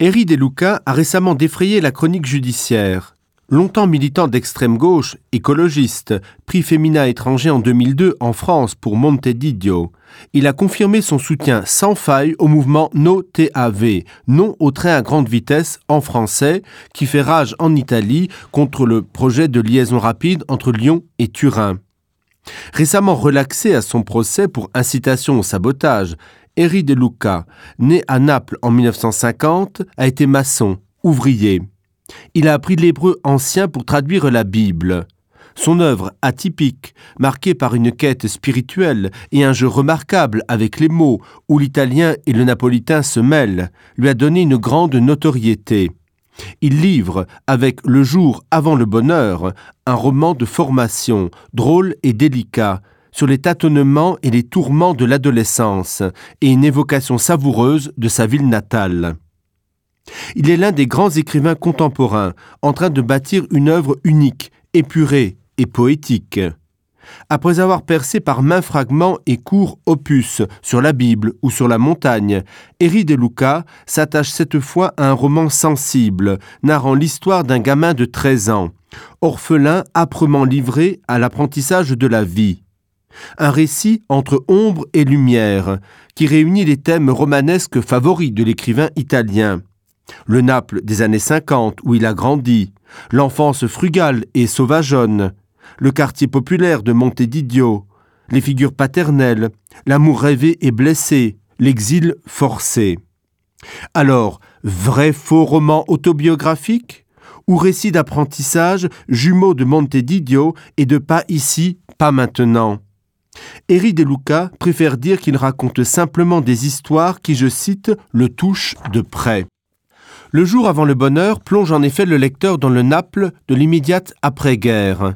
Eri De Luca a récemment défrayé la chronique judiciaire. Longtemps militant d'extrême gauche, écologiste, prix Femina étranger en 2002 en France pour Montedidio, il a confirmé son soutien sans faille au mouvement No TAV, non au train à grande vitesse en français, qui fait rage en Italie contre le projet de liaison rapide entre Lyon et Turin. Récemment relaxé à son procès pour incitation au sabotage, Eri De Luca, né à Naples en 1950, a été maçon, ouvrier. Il a appris l'hébreu ancien pour traduire la Bible. Son œuvre atypique, marquée par une quête spirituelle et un jeu remarquable avec les mots où l'italien et le napolitain se mêlent, lui a donné une grande notoriété. Il livre, avec Le jour avant le bonheur, un roman de formation, drôle et délicat, sur les tâtonnements et les tourments de l'adolescence et une évocation savoureuse de sa ville natale. Il est l'un des grands écrivains contemporains en train de bâtir une œuvre unique, épurée et poétique. Après avoir percé par maints fragments et courts opus sur la Bible ou sur la montagne, Eri De Luca s'attache cette fois à un roman sensible, narrant l'histoire d'un gamin de 13 ans, orphelin âprement livré à l'apprentissage de la vie. Un récit entre ombre et lumière, qui réunit les thèmes romanesques favoris de l'écrivain italien. Le Naples des années 50 où il a grandi, l'enfance frugale et sauvageonne, le quartier populaire de Montedidio, les figures paternelles, l'amour rêvé et blessé, l'exil forcé. Alors, vrai faux roman autobiographique ou récit d'apprentissage jumeau de Montedidio et de pas ici, pas maintenant. Eri De Luca préfère dire qu'il raconte simplement des histoires qui, je cite, le touchent de près. Le jour avant le bonheur plonge en effet le lecteur dans le Naples de l'immédiate après-guerre.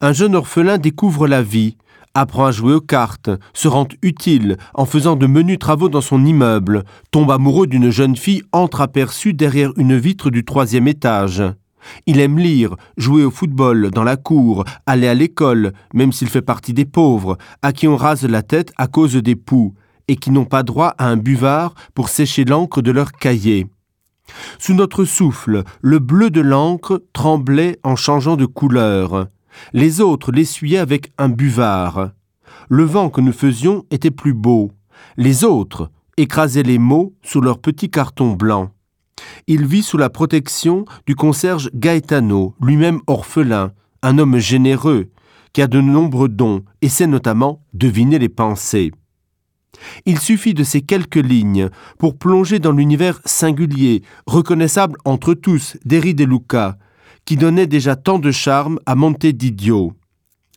Un jeune orphelin découvre la vie, apprend à jouer aux cartes, se rend utile en faisant de menus travaux dans son immeuble, tombe amoureux d'une jeune fille entreaperçue derrière une vitre du troisième étage. Il aime lire, jouer au football dans la cour, aller à l'école, même s'il fait partie des pauvres, à qui on rase la tête à cause des poux et qui n'ont pas droit à un buvard pour sécher l'encre de leur cahier. Sous notre souffle, le bleu de l'encre tremblait en changeant de couleur. Les autres l'essuyaient avec un buvard. Le vent que nous faisions était plus beau. Les autres écrasaient les mots sous leur petit carton blanc. Il vit sous la protection du concierge Gaetano, lui-même orphelin, un homme généreux, qui a de nombreux dons et sait notamment deviner les pensées. Il suffit de ces quelques lignes pour plonger dans l'univers singulier, reconnaissable entre tous d'Eri de Luca, qui donnait déjà tant de charme à Monte d'Idiot.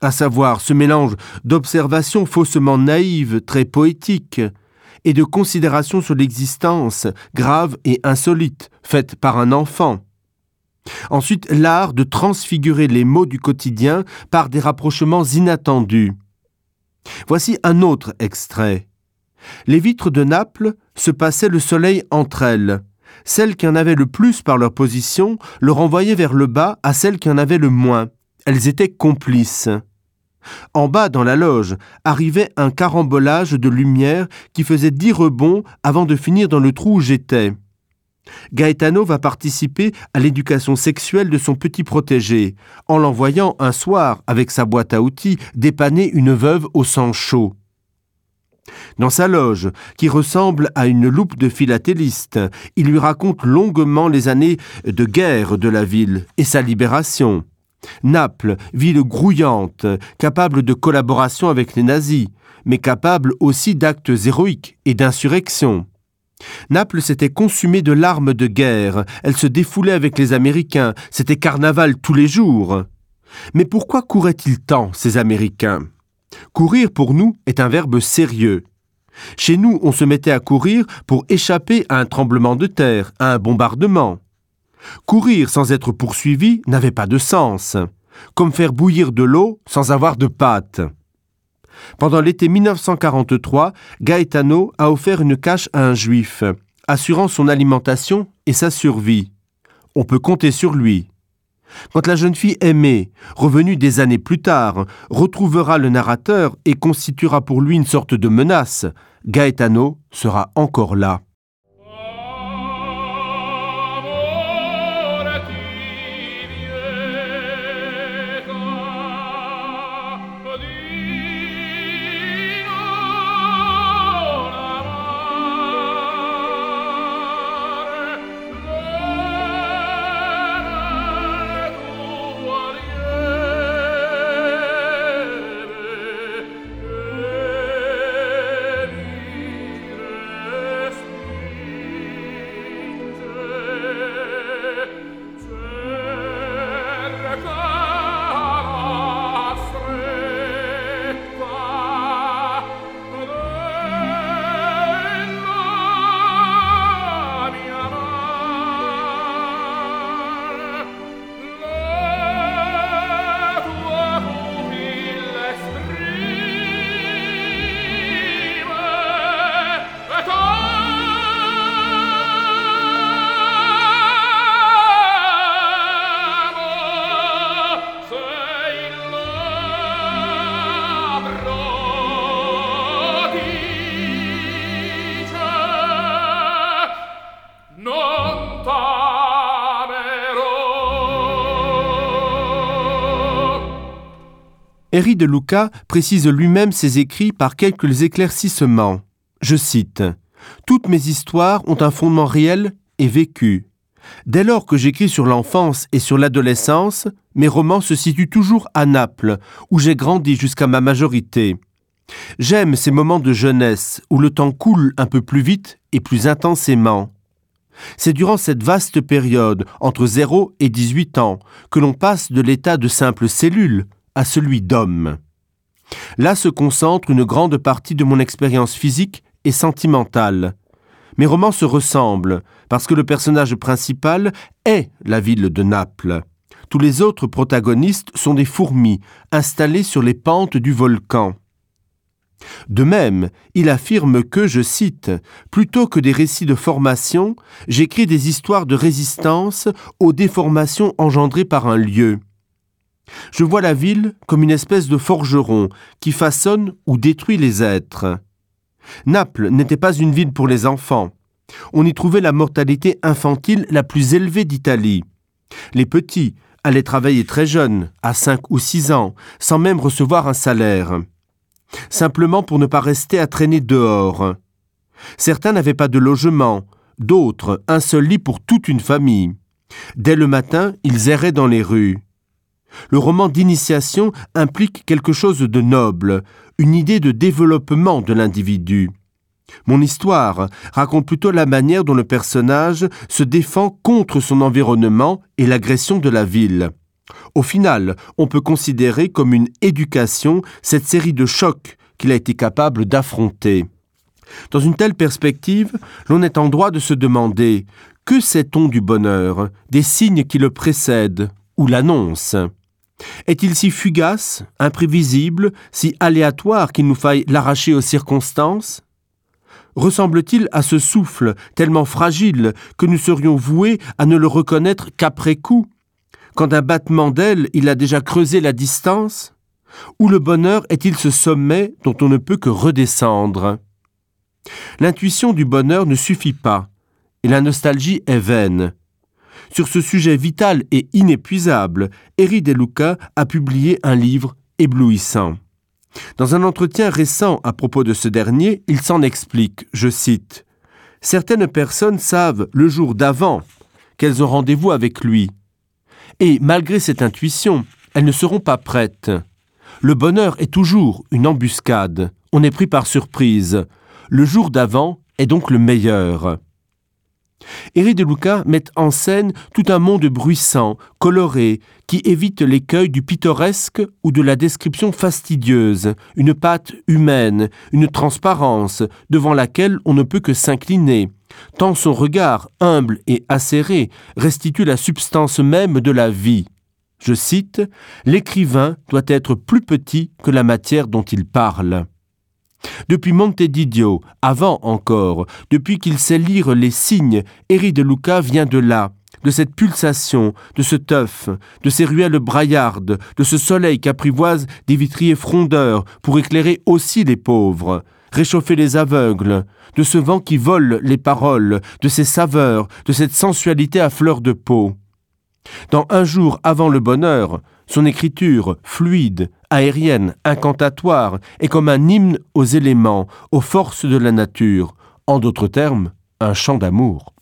À savoir ce mélange d'observations faussement naïves, très poétiques, et de considérations sur l'existence, grave et insolite, faite par un enfant. Ensuite, l'art de transfigurer les mots du quotidien par des rapprochements inattendus. Voici un autre extrait. Les vitres de Naples se passaient le soleil entre elles. Celles qui en avaient le plus par leur position le renvoyaient vers le bas à celles qui en avaient le moins. Elles étaient complices. En bas dans la loge arrivait un carambolage de lumière qui faisait dix rebonds avant de finir dans le trou où j'étais. Gaetano va participer à l'éducation sexuelle de son petit protégé, en l'envoyant un soir, avec sa boîte à outils, dépanner une veuve au sang chaud. Dans sa loge, qui ressemble à une loupe de philatéliste, il lui raconte longuement les années de guerre de la ville et sa libération. Naples, ville grouillante, capable de collaboration avec les nazis, mais capable aussi d'actes héroïques et d'insurrection. Naples s'était consumée de larmes de guerre, elle se défoulait avec les Américains, c'était carnaval tous les jours. Mais pourquoi couraient-ils tant, ces Américains Courir pour nous est un verbe sérieux. Chez nous, on se mettait à courir pour échapper à un tremblement de terre, à un bombardement. Courir sans être poursuivi n'avait pas de sens, comme faire bouillir de l'eau sans avoir de pâte. Pendant l'été 1943, Gaetano a offert une cache à un juif, assurant son alimentation et sa survie. On peut compter sur lui. Quand la jeune fille aimée, revenue des années plus tard, retrouvera le narrateur et constituera pour lui une sorte de menace, Gaetano sera encore là. Non t'amerò. Erri de Luca précise lui-même ses écrits par quelques éclaircissements. Je cite: Toutes mes histoires ont un fondement réel et vécu. Dès lors que j'écris sur l'enfance et sur l'adolescence, mes romans se situent toujours à Naples, où j'ai grandi jusqu'à ma majorité. J'aime ces moments de jeunesse où le temps coule un peu plus vite et plus intensément. C'est durant cette vaste période, entre 0 et 18 ans, que l'on passe de l'état de simple cellule à celui d'homme. Là se concentre une grande partie de mon expérience physique et sentimentale. Mes romans se ressemblent parce que le personnage principal est la ville de Naples. Tous les autres protagonistes sont des fourmis installées sur les pentes du volcan. De même, il affirme que, je cite, plutôt que des récits de formation, j'écris des histoires de résistance aux déformations engendrées par un lieu. Je vois la ville comme une espèce de forgeron qui façonne ou détruit les êtres. Naples n'était pas une ville pour les enfants. On y trouvait la mortalité infantile la plus élevée d'Italie. Les petits allaient travailler très jeunes, à cinq ou six ans, sans même recevoir un salaire. Simplement pour ne pas rester à traîner dehors. Certains n'avaient pas de logement, d'autres un seul lit pour toute une famille. Dès le matin, ils erraient dans les rues. Le roman d'initiation implique quelque chose de noble, une idée de développement de l'individu. Mon histoire raconte plutôt la manière dont le personnage se défend contre son environnement et l'agression de la ville. Au final, on peut considérer comme une éducation cette série de chocs qu'il a été capable d'affronter. Dans une telle perspective, l'on est en droit de se demander: que sait-on du bonheur, des signes qui le précèdent ou l'annoncent? Est-il si fugace, imprévisible, si aléatoire qu'il nous faille l'arracher aux circonstances? Ressemble-t-il à ce souffle tellement fragile que nous serions voués à ne le reconnaître qu'après coup, quand d'un battement d'aile il a déjà creusé la distance? Ou le bonheur est-il ce sommet dont on ne peut que redescendre? L'intuition du bonheur ne suffit pas, et la nostalgie est vaine. Sur ce sujet vital et inépuisable, Eri De Luca a publié un livre éblouissant. Dans un entretien récent à propos de ce dernier, il s'en explique, je cite: Certaines personnes savent le jour d'avant qu'elles ont rendez-vous avec lui. Et malgré cette intuition, elles ne seront pas prêtes. Le bonheur est toujours une embuscade. On est pris par surprise. Le jour d'avant est donc le meilleur. Eri de Luca met en scène tout un monde bruissant, coloré, qui évite l'écueil du pittoresque ou de la description fastidieuse, une pâte humaine, une transparence devant laquelle on ne peut que s'incliner. Tant son regard, humble et acéré, restitue la substance même de la vie. Je cite: L'écrivain doit être plus petit que la matière dont il parle. Depuis Montedidio, avant encore, depuis qu'il sait lire les signes, Eri de Luca vient de là, de cette pulsation, de ce teuf, de ces ruelles braillardes, de ce soleil qu'apprivoise des vitriers frondeurs pour éclairer aussi les pauvres, réchauffer les aveugles, de ce vent qui vole les paroles, de ces saveurs, de cette sensualité à fleur de peau. Dans un jour avant le bonheur, son écriture, fluide, aérienne, incantatoire, est comme un hymne aux éléments, aux forces de la nature, en d'autres termes, un chant d'amour.